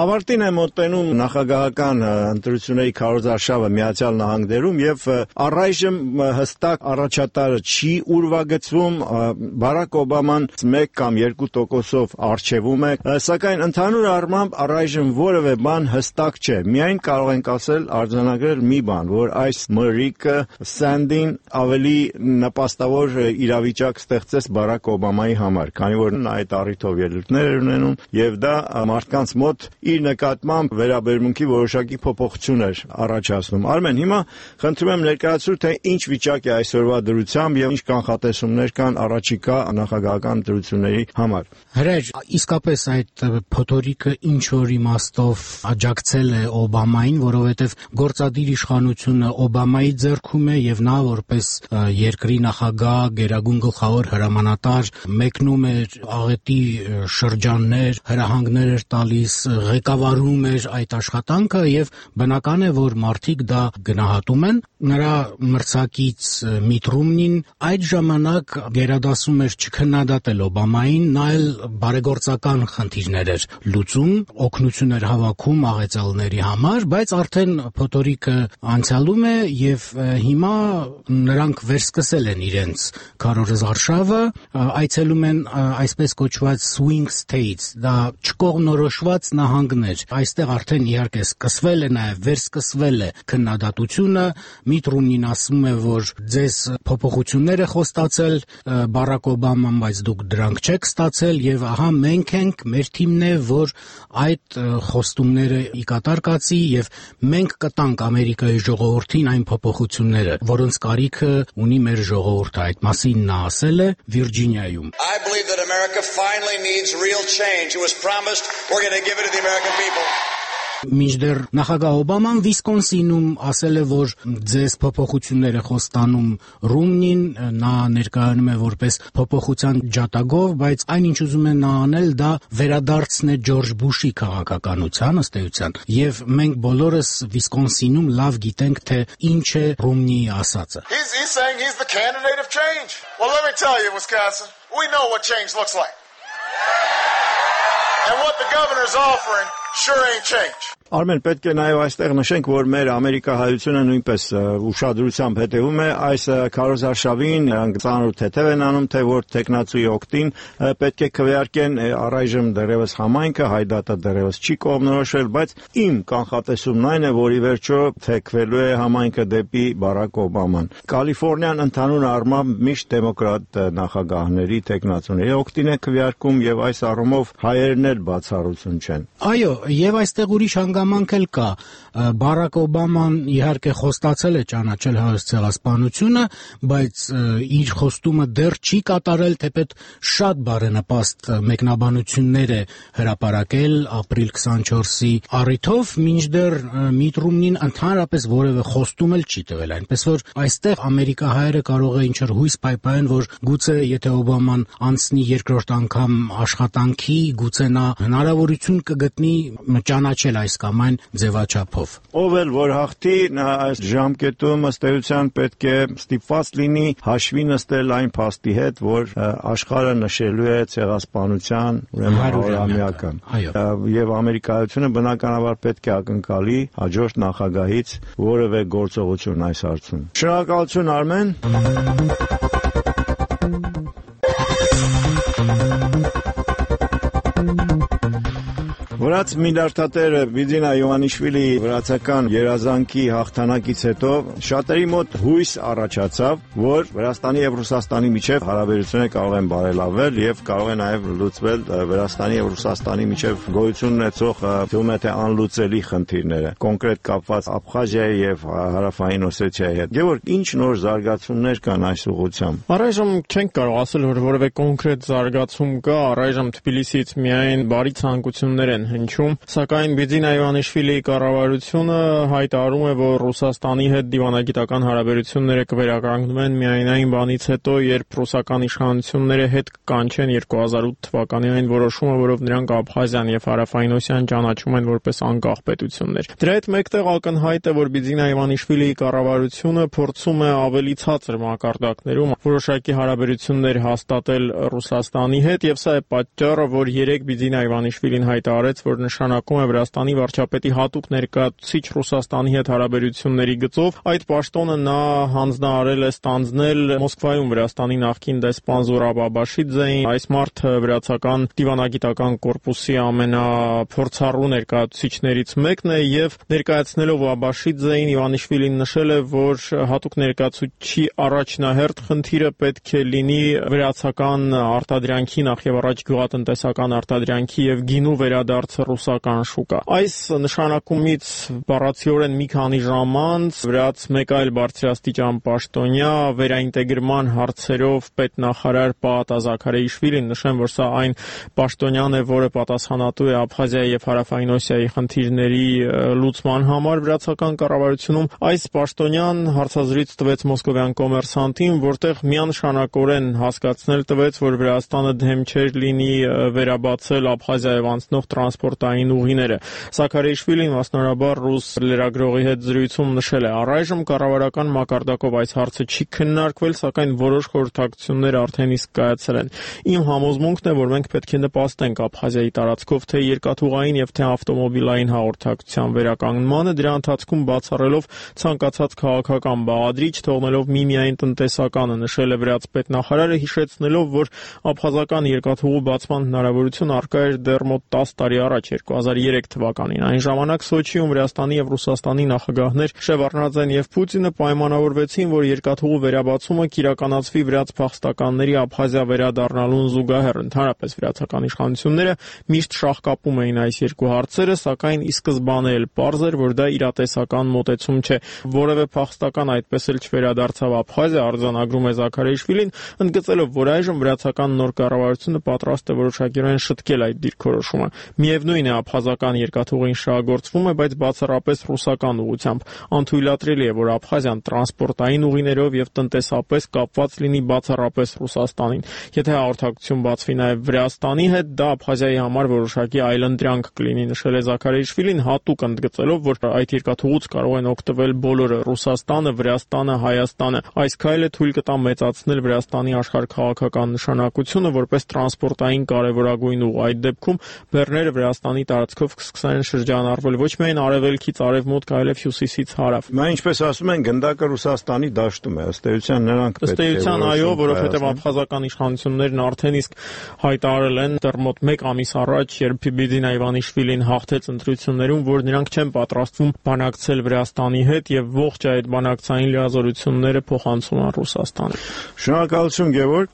Ավարտին է մոտենում նախագահական ընտրությունների քարոզարշավը Միացյալ Նահանգներում եւ առայժմ հստակ առաջատարը չի ուրվագծվում, Բարակ Օբաման 1 կամ 2%-ով առջևում է, սակայն ընդհանուր առմամբ առայժմ որևէ բան հստակ չէ։ Միայն կարող ենք ասել արձանագրել մի բան, որ այս մրրիկը Սանդին ավելի նպաստավոր իրավիճակ ստեղծեց Բարակ Օբամայի համար, քանի որ նա այդ առիթով ելույթներ էր ունենում եւ դա մարդկանց մոտ իր նկատմամբ վերաբերմունքի որոշակի փոփոխություն էր առաջացնում։ Արմեն, հիմա խնդրում եմ ներկայացրու, թե ինչ վիճակ է այսօրվա դրությամբ եւ ինչ կանխատեսումներ կան առաջիկա նախագահական ընտրությունների համար։ Հրեջ, իսկապես այդ փոթորիկը ինչ որ իմաստով աջակցել է Օբամային, որովհետեւ գործադիր իշխանությունը Օբամայի ձեռքում է եւ նա որպես երկրի նախագահ, գերագույն գլխավոր հրամանատար մեկնում էր աղետի շրջաններ, հրահանգներ էր տալիս, ղեկավարում էր այդ աշխատանքը եւ բնական է, որ մարդիկ դա գնահատում են։ Նրա մրցակից Միտ Ռոմնին այդ ժամանակ գերադասում էր չքննադատել Օբամային, նա էլ բարեգործական խնդիրներ էր լուծում, օգնություն էր հավաքում աղետալների համար, բայց արդեն փոթորիկը անցյալում է եւ հիմա նրանք վերսկսել են իրենց քարոզարշավը, այցելում են այսպես կոչված swing states, դա չկողմնորոշված նահանգներ։ Այստեղ արդեն իհարկե սկսվել է նաեւ վերսկսվել է քննադատությունը, Միտ Ռոմնին ասում է, որ ձեզ փոփոխություններ է խոստացել Բարակ Օբաման, բայց դուք դրանք չեք ստացել եւ ահա մենք ենք, մեր թիմն է, որ այդ խոստումները ի կատար կացի եւ մենք կտանք Ամերիկայի ժողովրդին այն փոփոխությունները, որոնց կարիքը ունի մեր ժողովուրդը։ Այդ մասին նա ասել է Վիրջինիայում։ I believe that America finally needs real change. It was promised, we're going to give it to the American people. Մինչդեռ նախագահ Օբաման Վիսկոնսինում ասել է, որ ձեզ փոփոխություններ է խոստանում Ռոմնին, նա ներկայանում է որպես փոփոխության ջատագով, բայց այն ինչ ուզում է նա անել, դա վերադարձն է Ջորջ Բուշի քաղաքականության ըստ էության, եւ մենք բոլորս Վիսկոնսինում լավ գիտենք, թե ինչ է Ռոմնիի ասածը։ He's saying he's the candidate of change. Well, let me tell you, Wisconsin, we know what change looks like. And what the governor's offering sure ain't change. Արմեն, պետք է նաև այստեղ նշենք, որ մեր ամերիկահայությունը նույնպես ուշադրությամբ հետևում է այս քարոզարշավին, նրանք ծանր թեթև են անում, թե որ տեխնացուի օգտին պետք է քվեարկեն առայժմ դեռևս համայնքը, հայդատը դեռևս չի կողմնորոշվել, բայց իմ կանխատեսումն այն է, որ ի վերջո թեքվելու է համայնքը դեպի Բարակ Օբաման։ Կալիֆոռնիան ընդհանուր առմամբ միշտ դեմոկրատ նախագահների, տեխնացուների օգտին է քվեարկում եւ այս առումով հայերն էլ բացառություն չեն։ Այո, եւ այստեղ ուրիշ հանգամանք էլ կա։ Բարակ Օբաման իհարկե խոստացել է ճանաչել Հայոց ցեղասպանությունը, բայց իր խոստումը դեռ չի կատարել, թեպետ շատ բարենպաստ մեկնաբանություններ է հրապարակել ապրիլ 24-ի առիթով, մինչդեռ Միտ Ռոմնին ընդհանրապես որևէ խոստում էլ չի տվել, այնպես որ այստեղ ամերիկահայերը կարող է ինչ-որ հույս պայպայեն, որ գուցե եթե Օբաման անցնի երկրորդ անգամ աշխատանքի, գուցե նա հնարավորություն կգտնի ճանաչել այս կամ այն ձևաչափով։ Ով էլ որ հաղթի, նա այս ժամկետում ըստ էության պետք է ստիպված լինի հաշվի նստել այն փաստի հետ, որ աշխարհը նշելու է ցեղասպանության ուրեմն 100-ամյակը։ Եվ ամերիկայությունը բնականաբար պետք է ակնկալի հաջորդ նախագահից որևէ գործողություն այս հարցում։ Շնորհակալություն, Արմեն։ Վրաց միլիարդատեր Բիձինա Յովանիշվիլի վրացական երազանքի հաղթանակից հետո շատերի մոտ հույս առաջացավ, որ Վրաստանի եւ Ռուսաստանի միջև հարաբերությունները կարող են բարելավել եւ կարող է նաեւ լուծվել Վրաստանի եւ Ռուսաստանի միջև գոյություն ունեցող թվում է թե անլուծելի խնդիրները, կոնկրետ կապված Աբխազիայի եւ Հարավային Օսեթիայի հետ։ Գևորգ, ինչ նոր զարգացումներ կան այս ուղղությամբ։ Առայժմ չենք կարող ասել, որ որևէ կոնկրետ զարգացում կա, առայժմ Թբիլիսիից միայն բարի ցանկություններ են հնչում, սակայն Բիձինա Յովանիշվիլիի կառավարությունը հայտարարում է, որ Ռուսաստանի հետ դիվանագիտական հարաբերությունները կվերականգնվեն միայն այն բանից հետո, երբ ռուսական իշխանությունները հետ կկանչեն 2008 թվականի այն որոշումը, որով նրանք Աբխազիան եւ Հարավային Օսիան ճանաչում են որպես անկախ պետություններ։ Դրա հետ մեկտեղ ակնհայտ է, որ Բիձինա Յովանիշվիլիի կառավարությունը փորձում է ավելի ցածր մակարդակներում որոշակի հարաբերություններ հաստատել Ռուսաստանի հետ, եւ սա է պատճառը, որ երեք Բիձինա Յովանիշվիլին հայտարարեց, որ նշանակում է Վրաստանի վարչապետի հատուկ ներկայացուցիչ Ռուսաստանի հետ հարաբերությունների գծով։ Այդ պաշտոնը նա հանձնարարել է ստանձնել Մոսկվայում Վրաստանի նախկին դեսպան Զորաբ Աբաշիձեին։ Այս մարդը վրացական դիվանագիտական կորպուսի ամենափորձառու ներկայացուցիչներից մեկն է եւ ներկայացնելով Աբաշիձեին Իվանիշվիլին նշել է, որ հատուկ ներկայացուցչի առաջնահերթ խնդիրը պետք է լինի վրացական արտադրանքի, նախ եւ առաջ գյուղատնտեսական արտադրանքի եւ գինու վերադարձը ռուսական շուկա։ Այս նշանակումից բառացիորեն մի քանի ժամ անց վրաց մեկ այլ բարձրաստիճան պաշտոնյա վերաինտեգրման հարցերով պետնախարար Պաատա Զաքարեիշվիլին, նշեմ, որ սա այն պաշտոնյան է, որը պատասխանատու է Աբխազիայի եւ Հարավային Օսիայի խնդիրների լուծման համար վրացական կառավարությունում, այս պաշտոնյան հարցազրույց տվեց մոսկովյան Կոմերսանտին, որտեղ միանշանակորեն հասկացնել տվեց, որ Վրաստանը դեմ չէր լինի վերաբացել Աբխազիայով անցնող տրանսպորտային ուղիները։ Զաքարեիշվիլին մասնարարաբար ռուս լրագրողի հետ զրույցում նշել է. «Առայժմ կառավարական մակարդակով այս հարցը չի քննարկվել, սակայն որոշ խորհրդակցություններ արդեն իսկ կայացել են։ Իմ համոզմունքն է, որ մենք պետք է նպաստենք Աբխազիայի տարածքով թե երկաթուղային եւ թե ավտոմոբիլային հաղորդակցության վերականգնմանը, դրա ընթացքում բացառելով ցանկացած քաղաքական բաղադրիչ, թողնելով միմիայն տնտեսականը», նշել է վրաց պետնախարարը, հիշեցնելով, որ աբխազական երկաթուղու բացման հնարավորություն առկա էր դեռ մոտ 10 տարի առաջ, 2003 թվականին։ Այն ժամանակ Սոչիում Վրաստանի եւ Ռուսաստանի նախագահներ Շևարդնաձեն եւ Պուտինը պայմանավորվեցին, որ երկաթուղու վերաբացումը կիրականացվի վրաց փախստականների Աբխազիա վերադառնալուն զուգահեռ։ Ընդհանրապես վրացական իշխանությունները միշտ շահկապում էին այս երկու հարցերը, սակայն ի սկզբանե էլ պարզ էր, որ դա իրատեսական մոտեցում չէ։ Որևէ փախստական այդպես էլ չվերադարձավ Աբխազիա, արձանագրում է Զաքարեիշվիլին, ընդգծելով, որ այժմ վրացական նոր կառավարությունը պատրաստ է որոշակիորեն շտկել այդ դիրքորոշումը։ Միևնույն է, աբխազական երկաթուղին շահագործվում է, բայց բացառապես ռուսական ուղղությամբ։ Անթույլատրելի է, որ Աբխազիան տրանսպորտային ուղիներով եւ տնտեսապես կապված լինի բացառապես Ռուսաստանին։ Եթե հաղորդակցություն բացվի նաեւ Վրաստանի հետ, դա Աբխազիայի համար որոշակի այլընտրանք կլինի, նշել է Զաքարեիշվիլին, հատուկ ընդգծելով, որ այդ երկաթուղուց կարող են օգտվել բոլորը՝ Ռուսաստանը, Վրաստանը, Հայաստանը։ Այս քայլը թույլ կտա մեծացնել Վրաստանի աշխարհքաղաքական նշանակությունը որպես տրանսպորտային կարևորագույն ուղ։ Այդ դեպքում բեռները Վրաստանի տարածքով կսկսեն շրջանառվել ոչ միայն արևելքից արևմուտք, այլև հյուսիսից հարավ։ Նա ինչպես ասում են, գնդակը Ռուսաստանի դաշտում է, ըստ էության նրանք պետք է։ Ըստ էության այո, որովհետև աբխազական իշխանություններն արդեն իսկ հայտարարել են դեռ մոտ 1 ամիս առաջ, երբ Բիբիդինա Իվանիշվիլին հաղթեց ընտրություններում, որ նրանք չեն պատրաստվում բանակցել Վրաստանի հետ եւ ողջ այդ բանակցային լիազորությունները փոխանցում են Ռուսաստանին։ Շնորհակալություն, Գևորգ։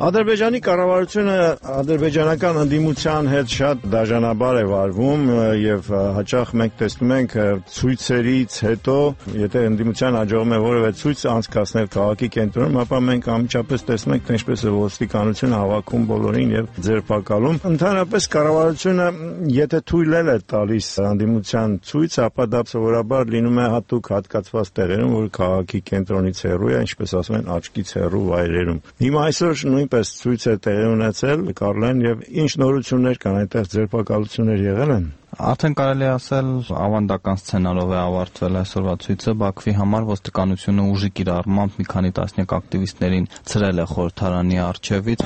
Ադրբեջանի կառավարությունը ադրբեջանական ընդդիմության հետ շատ դաժանաբար է վարվում եւ հաճախ մենք տեսնում ենք ցույցերից հետո, եթե ընդդիմության հաջողում է որևէ ցույց անցկացնել քաղաքի կենտրոնում, ապա մենք անմիջապես տեսնում ենք, թե ինչպես է ոստիկանությունը հավաքում բոլորին եւ ձերբակալում։ Ընդհանրապես կառավարությունը եթե թույլ է տալիս ընդդիմության ցույց, ապա դա սովորաբար լինում է հատուկ հատկացված տեղերում, որ քաղաքի կենտրոնից հեռու է, ինչպես ասում են, աչքից հեռու վայրերում։ Հիմա այսօր նույնպես ցույց է տեղի ունեցել, Կարլեն, եւ ինչ նորություններ կան, այնտեղ ձերբակալություններ եղել են։ Արդեն կարելի ասել ավանդական սցենարով է ավարտվել այսօրվա ցույցը։ Բաքվի համար ոստիկանությունը ուժի կիրառմամբ մի քանի տասնյակ ակտիվիստներին ցրել է խորհրդարանի առջևից։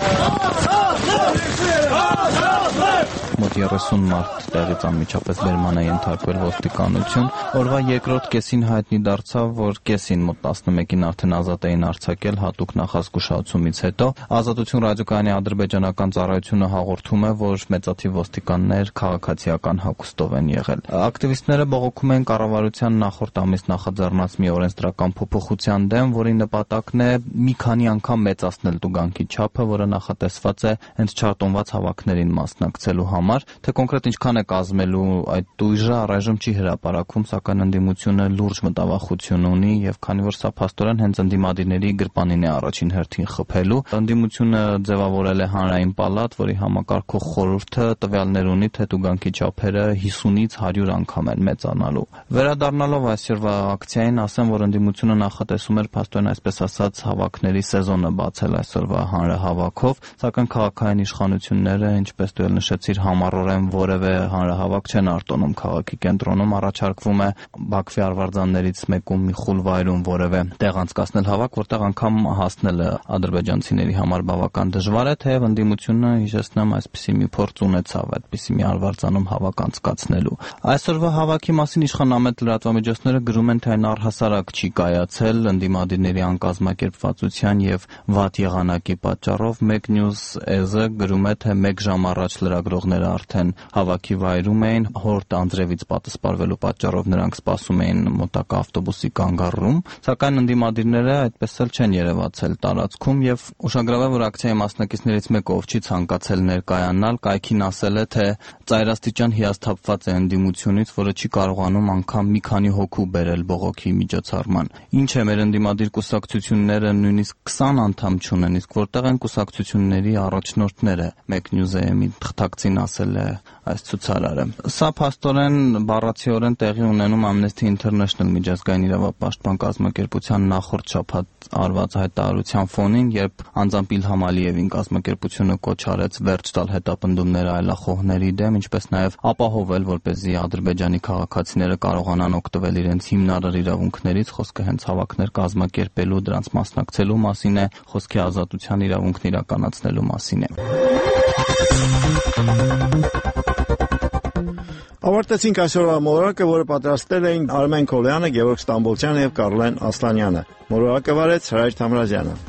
Մոտ 30 մարդ տեղից անմիջապես բերման է ենթարկվել ոստիկանություն։ Օրվա երկրորդ կեսին հայտնի դարձավ, որ կեսին մոտ 11-ին արդեն ազատ էին արձակել հատուկ նախազգուշացումից հետո։ Ազատություն ռադիոկայանի ադրբեջանական ծառայությունը հաղորդում է, որ մեծաթիվ ոստիկաններ քաղաքացիական հագուստով են եղել։ Ակտիվիստները բողոքում են կառավարության նախորդ ամիս նախաձեռնած մի օրենսդրական փոփոխության դեմ, որի նպատակն է մի քանի անգամ մեծացնել տուգանքի չափը, որը նախատեսված է հենց չարտոնված հավաքներին մասնակցելու համար, թե կոնկրետ ինչքան է կազմելու այդ տույժը առայժմ չի հրապարակվում, սակայն ընդդիմությունը լուրջ մտավախություն ունի եւ քանի որ սա փաստորեն հենց ընդդիմադիրների գրպանին է առաջին հերթին խփելու, ընդդիմությունը ձևավորել է հանրային պալատ, որի համակարգող խորհուրդը տվյալներ ունի, թե տուգանքի չափերը 50-ից 100 անգամ են մեծանալու։ Վերադառնալով այսօրվա ակցիային, ասեմ, որ ընդդիմությունը նախատեսում էր փաստորեն այսպես ասած հավաքների սեզոնը բացել այսօրվա հանրահավաքով, սակայն քաղաքային իշխանությունները, ինչպես դու նշեցիր, ամառորեն որևէ հանրահավաք չեն արտոնում քաղաքի կենտրոնում, առաջարկվում է Բաքվի արվարձաններից մեկում մի խուլ վայրում որևէ տեղ անցկացնել հավաք, որտեղ անգամ հասնելը ադրբեջանցիների համար բավական դժվար է, թեև ընդդիմությունը, հիշեցնեմ, այսպիսի մի փորձ ունեցավ այդպիսի մի արվարձանում հավաք անցկացնելու։ Այսօրվա հավաքի մասին իշխանամետ լրատվամիջոցները գրում են, թե այն առհասարակ չի կայացել ընդդիմադիրների անկազմակերպվածության եւ վատ եղանակի պատճառով։ Մեկ News.az-ը գրում է, թե 1 ժամ առաջ լրագրողները արդեն հավաքի վայրում էին, հորդ անձրևից պատասպարվելու պատճառով նրանք սպասում էին մոտակա ավտոբուսի կանգառում, սակայն ընդդիմադիրները այդպես էլ չեն երևացել տարածքում եւ ուշագրավ է, որ ակցիայի մասնակիցներից մեկը, ով չի ցանկացել ներկայանալ, կայքին ասել է, թե ծայրաստիճան հիասթափված է ընդդիմությունից, որը չի կարողանում անգամ մի քանի հոգու բերել բողոքի միջոցառման։ Ինչ է, մեր ընդդիմադիր կուսակցությունները նույնիսկ 20 անդամ չունեն, իսկ որտեղ են կուսակցությունների առաջնորդները, Մեկ News.am-ի թղթակցին ասել է այս ցուցարարը։ Սա փաստորեն բառացիորեն տեղի ունենում Amnesty International միջազգային իրավապաշտպան կազմակերպության նախորդ շաբաթ արված հայտարարության ֆոնին, երբ անձամբ Իլհամ Ալիևին կազմակերպությունը կոչ արեց վերջ տալ հետապնդումները այլախոհների դեմ, ինչպես նաև ապահովել, որպեսզի Ադրբեջանի քաղաքացիները կարողանան օգտվել իրենց հիմնարար իրավունքներից, խոսքը հենց հավաքներ կազմակերպելու, դրանց մասնակցելու մասին է, խոսքի ազատության իրավունքն իրականացնելու մասին է։ Ավարտեցինք այսօրվա մոլորակը, որը պատրաստել էին Արմեն Քոլյանը, Գևորգ Ստամբոլցյանը եւ Կարլեն Ասլանյանը։ Մոլորակը վարեց Հրայր Թամրազյանը։